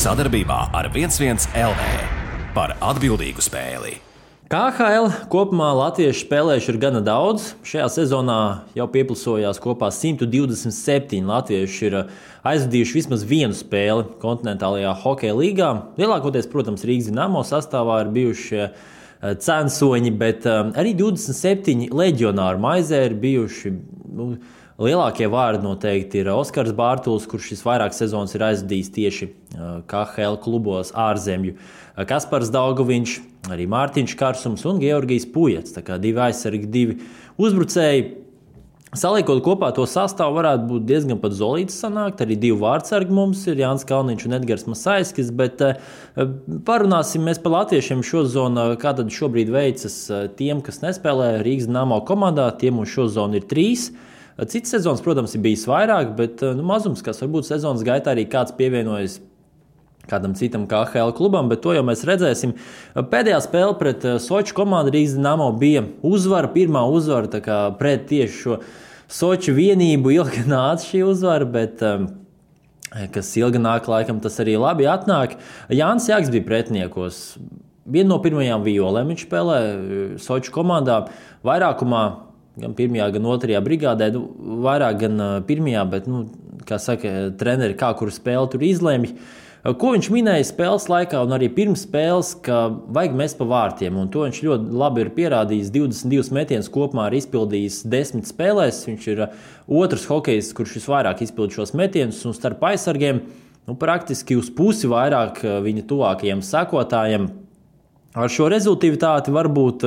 Sadarbībā ar 11 LV par atbildīgu spēli. KHL kopumā latviešu spēlējuši ir gana daudz. Šajā sezonā jau pieplusojās kopā 127 latvieši ir aizvadījuši vismaz vienu spēli kontinentālajā hokeja līgā. Lielākoties, protams, Rīgas Dinamo sastāvā ir bijuši censoņi, bet arī 27 leģionāri maizē ir bijuši. Lielākie vārdi noteikti ir Oskars Bārtuls, kurš šis vairākas sezonas ir aizvadījis tieši KHL klubos ārzemju. Kaspars Daugaviņš, arī Mārtiņš Karsums un Georgijs Pujats. Tā kā divi aizsargi, divi uzbrucēji. Saliekot kopā to sastāvu varētu būt diezgan pat zolīts sanākt. Arī divi vārdsargi mums ir Jānis Kalniņš un Edgars Masaiskis, bet parunāsim mēs par latviešiem šozonu, kā tad šobrīd veicas tiem, kas nespēlē Rīgas Dinamo komandā. Tiem mums šozonu ir 3. Cits sezonas, protams, ir bijis vairāk, bet mazums, kas varbūt sezonas gaitā arī kāds pievienojas kādam citam KHL klubam, bet to jau mēs redzēsim. Pēdējā spēle pret Soču komandu Rīgas Dinamo bija uzvara, pirmā uzvara, tā kā pret tieši šo Soču vienību ilgi nāca šī uzvara, bet kas ilgi nāk, laikam tas arī labi atnāk. Jānis Jaks bija pretiniekos. Viena no pirmajām violēm viņš spēlē Soču komandā vairākumā, gan pirmajā, gan otrajā brigādē, vairāk gan pirmajā, bet, kā saka, treneri kā kuru spēli tur izlēmj. Ko viņš minēja spēles laikā un arī pirms spēles, ka vajag mest pa vārtiem, un to viņš ļoti labi ir pierādījis. 22 metienus kopumā ir izpildījis 10 spēlēs. Viņš ir otrs hokejs, kurš visvairāk izpild šos metienus, un starp aizsargiem praktiski uz pusi vairāk viņa tuvākajiem sekotājiem. Ar šo rezultātu varbūt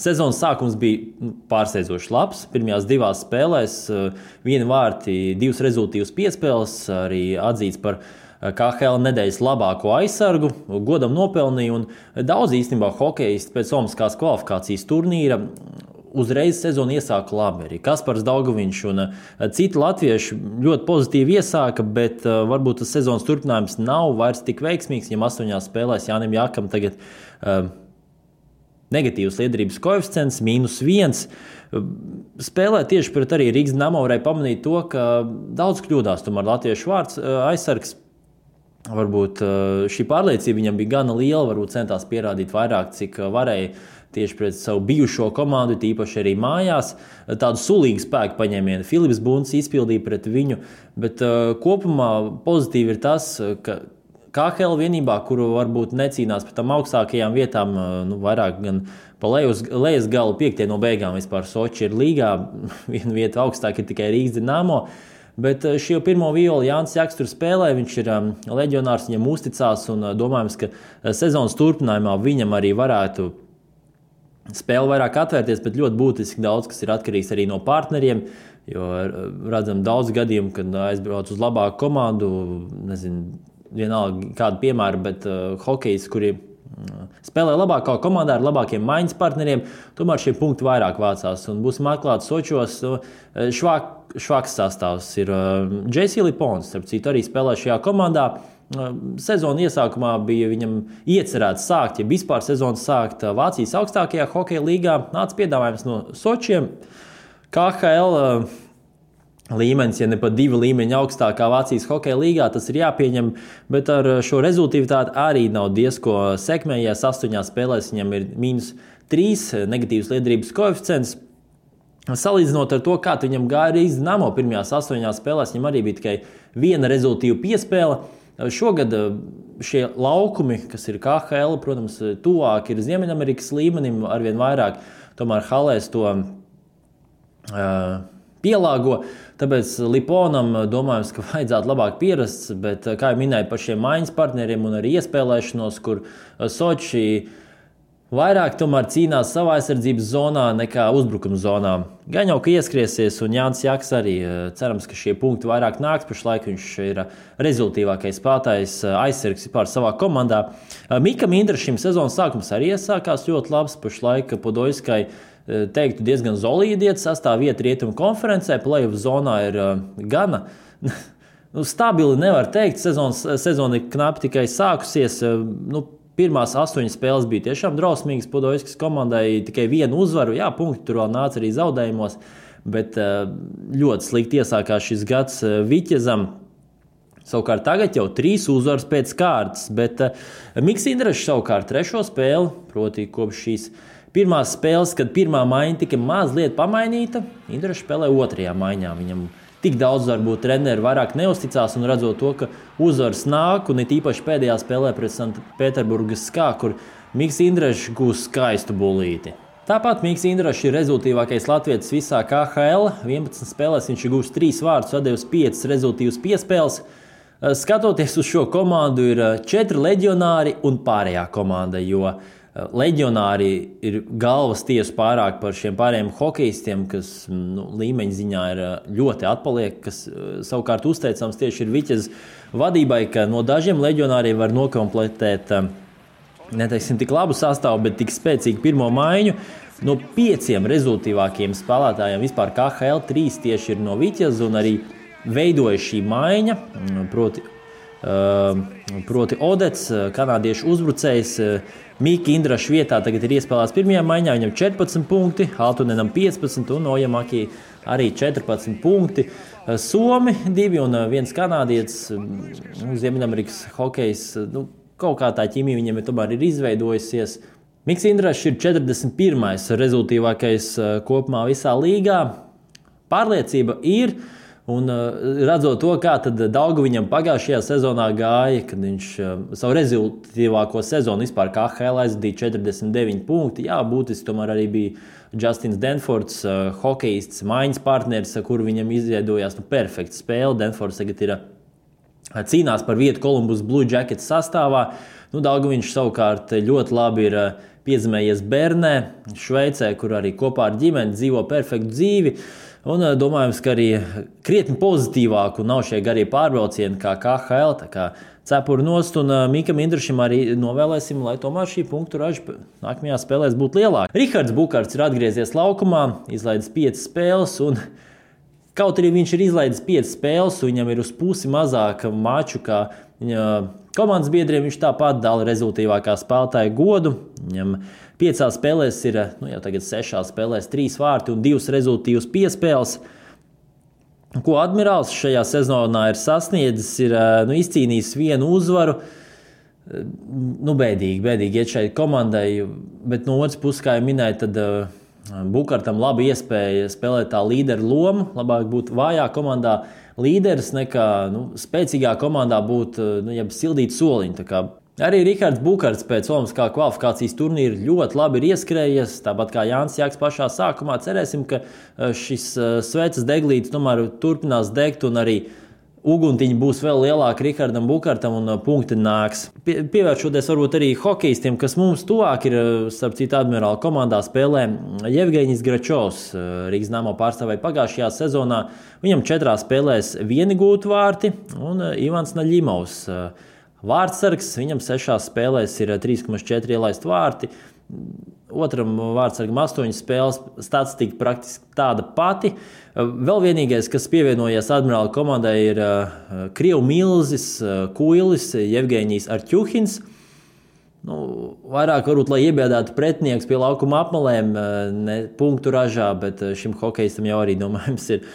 sezonas sākums bija pārsteidzoši labs. Pirmajās 2 spēlēs 1 vārti, 2 rezultātus piespēles, arī atzīts par KHL nedēļas labāko aizsargu, godam nopelnīja, un daudz īstenībā hokeisti pēc olimpiskās kvalifikācijas turnīra uzreiz sezonu iesāka labi. Arī Kaspars Daugaviņš un citi latvieši ļoti pozitīvi iesāka, bet varbūt tas sezonas turpinājums nav vairs tik veiksmīgs. Viņam 8 spēlēs Jānim Jakam tagad negatīvs liederības koeficients, -1. Spēlē tieši pret arī Rīgas Dinamo varēja pamanīt to, ka daudz kļūdās tomēr latviešu vārds aizsargs. Varbūt šī pārliecība viņam bija gana liela, varbūt centās pierādīt vairāk, cik varēja tieši pret savu bijušo komandu, tīpaši arī mājās. Tādu sulīgu spēku paņēmienu Filips Bunts izpildīja pret viņu, bet kopumā pozitīvi ir tas, ka KHL vienībā, kuru varbūt necīnās par tām augstākajām vietām, vairāk gan pa lejas galu 5. no beigām vispār Soči ir līgā, viena vieta augstāk ir tikai Rīgas Dinamo. Bet šī pirmo violi Jānis Jaks tur spēlē, viņš ir leģionārs, viņam uzticās un domājams, ka sezonas turpinājumā viņam arī varētu spēle vairāk atvērties, bet ļoti būtiski daudz, kas ir atkarīgs arī no partneriem, jo redzam daudz gadījumu, kad aizbrauc uz labāku komandu, nezinu, vienalga kādu piemēru, bet hokejs, kuri spēlē labākā komandā ar labākiem maiņas partneriem, tomēr šie punkti vairāk vācās. Un būsim atklāti Sočos, švaks sastāvs ir J.C. Lipons, starp citu arī spēlē šajā komandā. Sezona iesākumā bija viņam iecerēts sākt, ja vispār sezonas sākt Vācijas augstākajā hokeja līgā. Nāca piedāvājums no Sočiem. KHL līmenis, ja ne pat 2 līmeņi augstākā Vācijas hokeja līgā, tas ir jāpieņem, bet ar šo rezultātu arī nav diezko sekmējies. 8 spēlēs viņam ir -3 negatīvs liederības koeficients. Salīdzinot ar to, kā viņam gāja Rīgas Dinamo pirmajās 8 spēlēs, viņam arī bija tikai 1 rezultātu piespēle. Šogad šie laukumi, kas ir KHL, protams, tuvāk ir Ziemeļamerikas līmenim, arvien vairāk tomēr halēs to pielāgo. Tāpēc Liponam domājams, ka vajadzētu labāk pierast, bet, kā jau minēju, par šiem maiņas partneriem un arī iespēlēšanos, kur Soči vairāk tomēr cīnās savā aizsardzības zonā nekā uzbrukuma zonā. Gan jau, ka ieskriesies, un Jānis Jaks arī cerams, ka šie punkti vairāk nāks. Pašlaik viņš ir rezultīvākais spēlētājs aizsargs vispār savā komandā. Mikam Indrašim sezonas sākums arī iesākās ļoti labs. Pašlaik Podojskai teiktu diezgan solīdi iet sastāv vieta rietumu konferencē. Playoff zonā ir gana stabili, nevar teikt. Sezona ir knapi tikai sākusies. Pirmās 8 spēles bija tiešām drausmīgas Podojskas komandai, tikai 1 uzvaru. Jā, punkti tur vēl nāca arī zaudējumos, bet ļoti slikti iesākās šis gads Viķezam. Savukārt tagad jau 3 uzvaras pēc kārtas, bet Miks Indrašs savukārt 3. spēli, proti kopš šīs pirmās spēles, kad pirmā maiņa tika mazliet pamainīta, Indrašs spēlē 2. maiņā. Viņam tik daudz varbūt treneri vairāk neusticās un redzot to, ka uzvaras nāk un it īpaši pēdējā spēlē pret Sanktpēterburgas SKA, kur Miks Indrašs gūs skaistu bulīti. Tāpat Miks Indrašs ir rezultīvākais latvietis visā KHL. 11 spēlēs viņš ir gūs 3 vārdus, atdevis 5 rezultīvas piespēles. Skatoties uz šo komandu, ir 4 leģionāri un pārējā komanda, jo leģionāri ir galvas tiesu pārāk par šiem pārējiem hokejistiem, kas līmeņa ziņā ir ļoti atpaliek, kas savukārt uzteicams tieši ir Viķez vadībai, ka no dažiem leģionāriem var nokomplektēt neteiksim tik labu sastāvu, bet tik spēcīgu pirmo maiņu. No 5 rezultīvākiem spēlētājiem vispār KHL 3 tieši ir no Viķez un arī veidoja šī maiņa, proti Odets, kanādiešu uzbrucējs. Mika Indraša vietā tagad ir iespēlēts pirmajā maiņā, viņam 14 punkti, Altunenam 15 un Ojamaki arī 14 punkti. Somi 2 un 1 kanādietis, Ziemeļamerikas hokejs, kaut kā tā ķīmija viņam tomēr ir izveidojusies. Miks Indrašs ir 41. rezultīvākais kopumā visā līgā. Pārliecība ir. Un redzot to, kā Daugaviņam pagājušajā sezonā gāja, kad viņš savu rezultātīvāko sezonu vispār KHL aizdīja 49 punkti. Jā, būtiski tomēr arī bija Justins Denfords, hokejists, maiņas partneris, ar kuru viņam izveidojās perfekta spēle. Denfords tagad ir cīnās par vietu Columbus Blue Jackets sastāvā. Daugaviņš savukārt ļoti labi ir piedzimējies Bernē, Šveicē, kur arī kopā ar ģimeni dzīvo perfektu dzīvi. Un domājams, ka arī krietni pozitīvāk un nav šie garie pārbraucieni kā KHL, tā kā cepuri nost. Un Mikam Indrašam arī novēlēsim, lai tomēr šī punktu raža nākamajā spēlēs būtu lielāka. Rihards Bukarts ir atgriezies laukumā, izlaidis 5 spēles. Un kaut arī viņš ir izlaidis 5 spēles, viņam ir uz pusi mazāk maču kā viņa komandas biedriem. Viņš tāpat dala rezultīvākā spēlētāja godu. Viņam 5 spēlēs ir, jau tagad 6 spēlēs 3 vārti un 2 rezultīvas piespēles. Ko Admirāls šajā sezonā ir sasniedzis, ir izcīnījis 1 uzvaru. Bēdīgi iet šai komandai, bet no otras puses, kā jau minēju, tad Bukartam laba iespēja spēlēt tā līderu lomu. Labāk būt vājā komandā līderis nekā spēcīgā komandā būt sildīt soliņu. Arī Rihards Bukarts pēc Olimpiskā kvalifikācijas turnīra ļoti labi ir ieskrējies, tāpat kā Jānis Jāks pašā sākumā. Cerēsim, ka šis sveces deglītis tomēr turpinās degt un arī uguntiņi būs vēl lielāki Rihardam Bukartam un punkti nāks. Pievēršoties varbūt arī hokejistiem, kas mums tuvāk ir, starp citu Admirāla komandā spēlē Jevgeņijs Gračovs, Rīgas Dynamo pārstāvēja pagājušajā sezonā. Viņam 4 spēlēs 1 gūtu vārti un Ivans Naļimovs. Vārtsargs, viņam 6 spēlēs ir 3,4 ielaist vārti. Otram vārtsargam 8 spēles, statistika praktiski tāda pati. Vēl vienīgais, kas pievienojies Admirāla komandai, ir Krievu milzis, Kuilis, Jevgeņijs Arķuhins. Vairāk varbūt, lai iebiedētu pretinieks pie laukuma apmalēm, ne punktu ražā, bet šim hokejistam jau arī, domājams, ir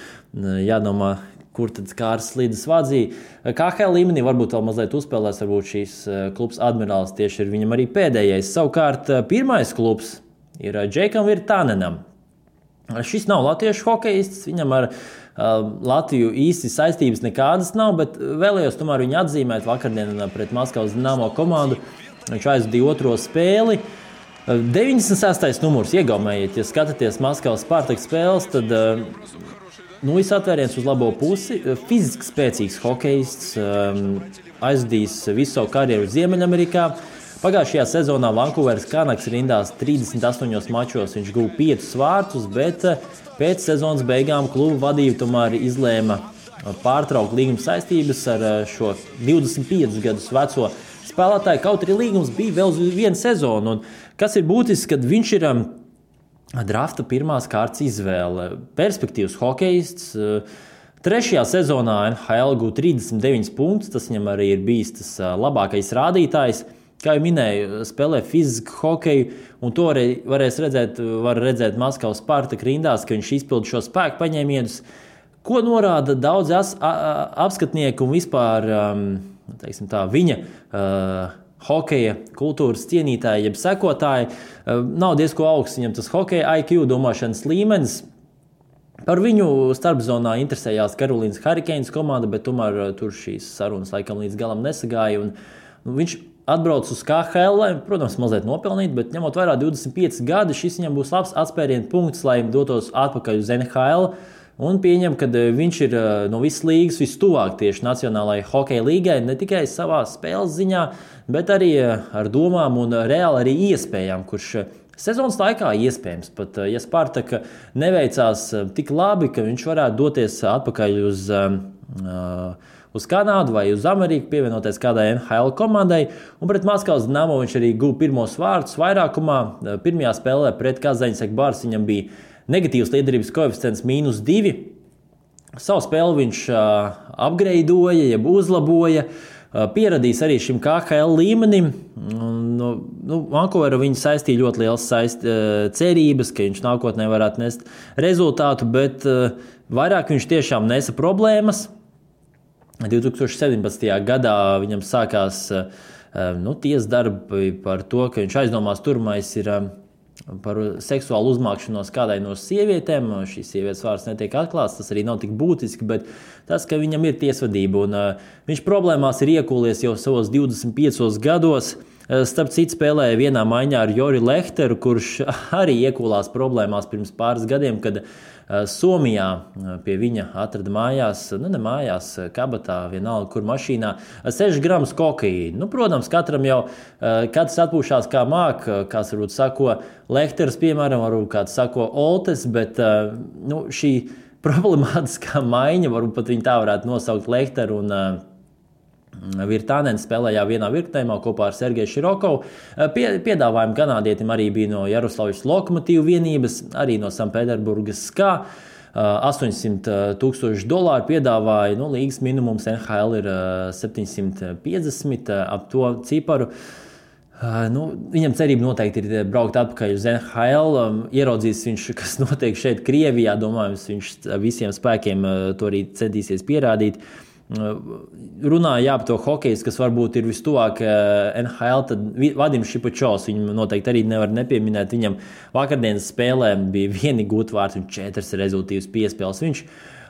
jādomā, kur tad Kārs Slīdis vadzīja. KHL līmenī varbūt vēl mazliet uzspēlēs, varbūt šīs klubs Admirāls tieši ir viņam arī pēdējais. Savukārt pirmais klubs ir Džekam Virtanenam. Šis nav latviešu hokejists, viņam ar Latviju īsti saistības nekādas nav, bet vēlējos tomēr viņu atzīmēt vakardienā pret Maskavas Dinamo komandu. Viņš aizdīja 2. spēli. 96. numurs iegaumējiet, ja skatāties Maskavas Spartak spēles, tad viss atvēriens uz labo pusi. Fiziski spēcīgs hokejists, aizdījis visu savu karjeru Ziemeļamerikā. Pagājušajā sezonā Vankūveras Canucks rindās 38 mačos. Viņš guva 5 vārtus, bet pēc sezonas beigām kluba vadība tomēr izlēma pārtraukt līguma saistības ar šo 25 gadus veco spēlētāju. Kaut arī līgums bija vēl uz 1 sezonu. Un kas ir būtisks, kad viņš ir drafta pirmās kārtas izvēle. Perspektīvs hokejists. 3. sezonā NHL guva 39 punktus. Tas viņam arī ir bijis tas labākais rādītājs. Kā jau minēju, spēlē fizisku hokeju, un to arī var redzēt Maskavas Spartak rindās, ka viņš izpilda šo spēku paņēmienus. ko norāda daudzi apskatnieki un vispār teiksim tā, viņa hokeja kultūras cienītāji, jeb sekotāji. Nav diezko augsts viņam tas hokeja IQ, domāšanas līmenis. Par viņu starpzonā interesējās Karolīnas Hurricanes komanda, bet tomēr tur šīs sarunas laikam līdz galam nesagāja. Viņš atbrauc uz KHL, lai, protams, mazliet nopelnīt, bet ņemot vērā 25 gadi, šis viņam būs labs atspērienu punkts, lai dotos atpakaļ uz NHL. Un pieņem, ka viņš ir no visas līgas vistuvāk tieši Nacionālajai hokeja līgai, ne tikai savā spēles ziņā, bet arī ar domām un reāli arī iespējām, kurš sezonas laikā iespējams pat, ja Spartaka neveicās tik labi, ka viņš varētu doties atpakaļ uz Kanādu vai uz Ameriku, pievienoties kādai NHL komandai. Un pret Maskavas Dinamo viņš arī guva pirmos vārdus vairākumā. Pirmajā spēlē pret Kazaņas Ekbārs viņam bija negatīvs liederības koeficients -2. Savu spēli viņš upgradeoja, jeb uzlaboja. Pieradījis arī šim KHL līmenim. Vankūveru viņa saistīja ļoti liels cerības, ka viņš nākotnē varētu nest rezultātu, bet vairāk viņš tiešām nesa problēmas. 2017. gadā viņam sākās tiesas darbi par to, ka viņš aizdomās turmais ir par seksuālu uzmākšanos kādai no sievietēm. Šīs sievietes vārds netiek atklāts, tas arī nav tik būtiski, bet tas, ka viņam ir tiesvedība un viņš problēmās ir iekūlies jau savos 25 gados. Starp citu spēlēja vienā maiņā ar Jori Lehteru, kurš arī iekūlās problēmās pirms pāris gadiem, kad Somijā pie viņa atrada mājās, ne mājās, kabatā, vienalga, kur mašīnā, 6 gramus kokaīna. Protams, katram jau katrs atpūšās kā māk, kāds varbūt sako Lehters, piemēram, varbūt kāds sako Oltes, bet šī problemātiskā maiņa, varbūt pat viņa tā varētu nosaukt Lehteru un Virtānens spēlējā vienā virknējumā kopā ar Sergeju Širokovu. Piedāvājumi kanādietim arī bija no Jaroslavas Lokomotīvu vienības, arī no Sanpēterburgas SKA. $800,000 piedāvāja, līgas minimums NHL ir 750 ap to ciparu. Viņam cerība noteikti ir braukt atpakaļ uz NHL. Ieraudzīs viņš, kas notiek šeit Krievijā, domājams, viņš visiem spēkiem to arī centīsies pierādīt. Runāja par to hokeju, kas varbūt ir vistuvāk NHL, tad Vadims Šipačovs, viņam noteikti arī nevar nepieminēt. Viņam vakardienas spēlē bija vieni gūtvārds un 4 rezultīvas piespēles. Viņš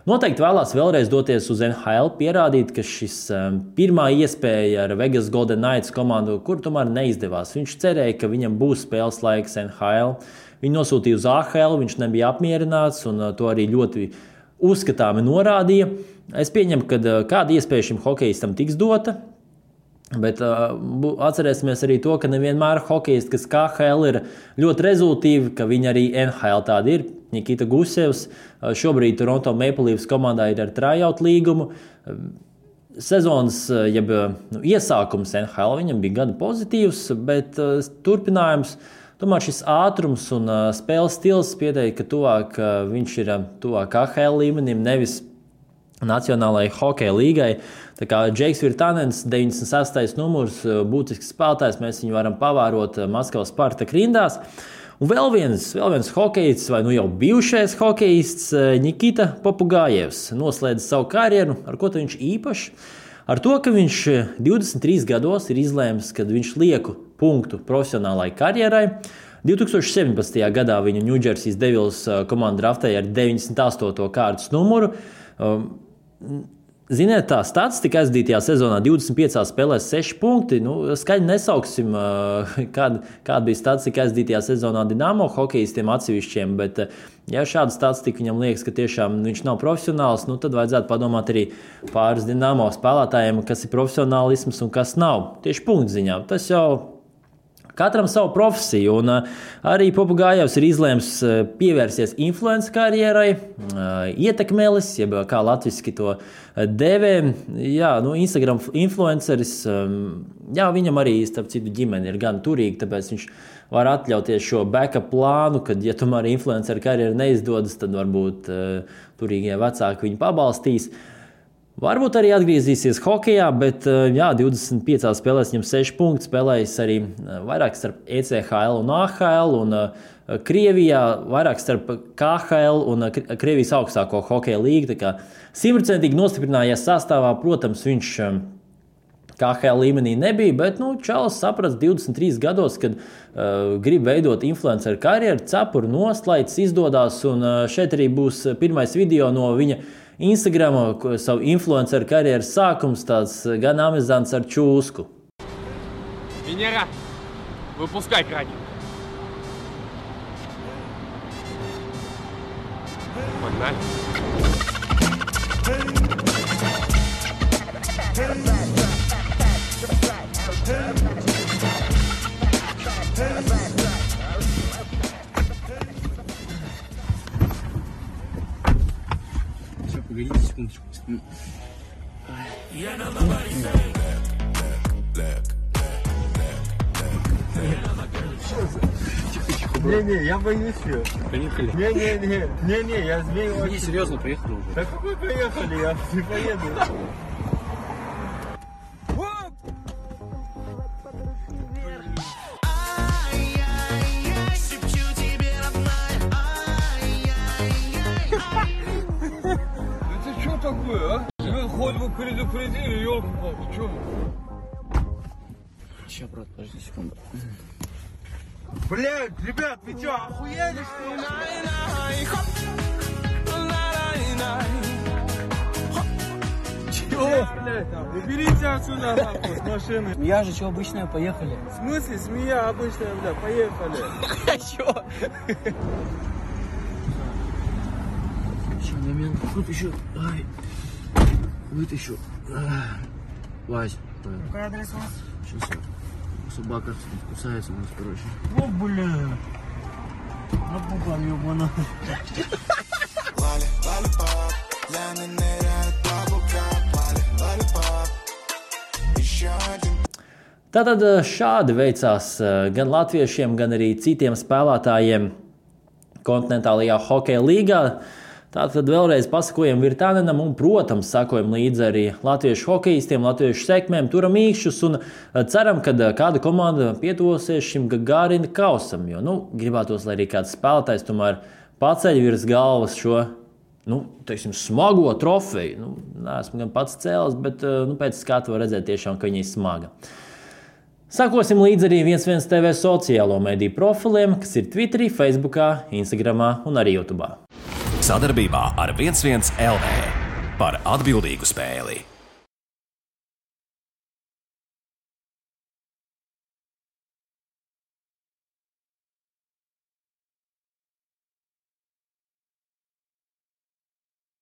noteikti vēlās vēlreiz doties uz NHL, pierādīt, ka šis pirmā iespēja ar Vegas Golden Knights komandu, kur tomēr neizdevās. Viņš cerēja, ka viņam būs spēles laiks NHL. Viņu nosūtīja uz AHL, viņš nebija apmierināts un to arī ļoti uzskatāmi norādīja. Es pieņemu, ka kāda iespēja šim hokejistam tiks dota, bet atcerēsimies arī to, ka nevienmēr hokejisti, kas KHL ir ļoti rezultīvi, ka viņi arī NHL tādi ir. Nikita Gusevs šobrīd Toronto Maple Leafs komandā ir ar tryout līgumu. Sezonas, jeb iesākums NHL viņam bija gana pozitīvs, bet turpinājums, tomēr šis ātrums un spēles stils pieteikt, ka viņš ir tuvāk KHL līmenim, nevis Nacionālajai hokeja līgai. Tā kā Džeiks Virtānens, 96. numurs, būtisks spēlētājs, mēs viņu varam pavērot Maskavas Spartaka rindās. Un vēl viens hokejists, vai jau bijušais hokejists, Nikita Popugājevs, noslēdz savu karjeru. Ar ko viņš īpašs? Ar to, ka viņš 23 gados ir izlēmis, kad viņš lieku punktu profesionālai karjerai. 2017. gadā viņu New Jersey Devils komanda draftēja ar 98. kārtas numuru. Ziniet, tā statistika aizdītajā sezonā 25 spēlēs 6 punkti. Skaļi nesauksim, kāda bija statistika aizdītajā sezonā Dinamo hokejistiem atsevišķiem, bet ja šāda statistika viņam liekas, ka tiešām viņš nav profesionāls, tad vajadzētu padomāt arī pāris Dinamo spēlētājiem, kas ir profesionālisms un kas nav. Tieši punktziņā. Tas jau katram savu profesiju, un arī Popugājevs ir izlēms pievērsties influencer karjerai, ietekmelis, jeb kā latviski to dēvē. Instagram influenceris, viņam arī, starp citu, ģimene ir gan turīga, tāpēc viņš var atļauties šo backup plānu, kad, ja tomēr influencer karjera neizdodas, tad varbūt turīgie vecāki viņu pabalstīs. Varbūt arī atgriezīsies hokejā, bet 25 spēlēs viņam 6 punkti, spēlējis arī vairāk starp ECHL un AHL, un Krievijā vairāk starp KHL un Krievijas augstāko hokeja līgu. Tā kā 100% nostiprinājies sastāvā, protams, viņš KHL līmenī nebija, bet Čalis saprast 23 gados, kad grib veidot influenceru karjeru, cepuru noslaids izdodās, un šeit arī būs pirmais video no viņa Instagrama, savu influenceru karjeras sākums, tāds gan amizants ar čūsku. Венера, выпускай краник. Погнали. Все, погодите секундочку. Не-не, я боюсь ее. Поехали. Не-не, я змею Не, очень. серьезно, поехали уже. Да какой поехали, я не поеду. Это что такое, а? Вы хоть бы предупредили, ёлки-палки, что? Сейчас, брат, подожди секунду. Блядь, ребят, вы что, охуели, что ли? Чего, блядь, там? Уберите отсюда, нахуй, с машины. Я же, что, обычная, поехали. В смысле, змея обычная, бля, поехали. Чё? Еще момент, вытащу. Ай. Вытащу. Вась. Какой адрес у вас? Сейчас собака кусается у нас, короче. О, бля. Напугал, ёбана. Tātad šādi veicās gan latviešiem, gan arī citiem spēlētājiem kontinentālajā hokeja līgā. Tātad vēlreiz pasakojam Virtanenam un, protams, sakojam līdzi arī latviešu hokejistiem, latviešu sekmēm, turam īkšķus un ceram, ka kāda komanda pietuvosies šim Gagarina kausam, jo, gribētos, lai arī kāds spēlētājs tomēr paceļ virs galvas šo, teiksim, smago trofeju. Neesmu gan pats cēlis, bet pēc skatu var redzēt tiešām, ka viņa ir smaga. Sakosim līdzi arī 11 TV sociālo mediju profiliem, kas ir Twitterī, Facebookā, Instagramā un arī YouTube. Sadarbībā ar 11 LV par atbildīgu spēli.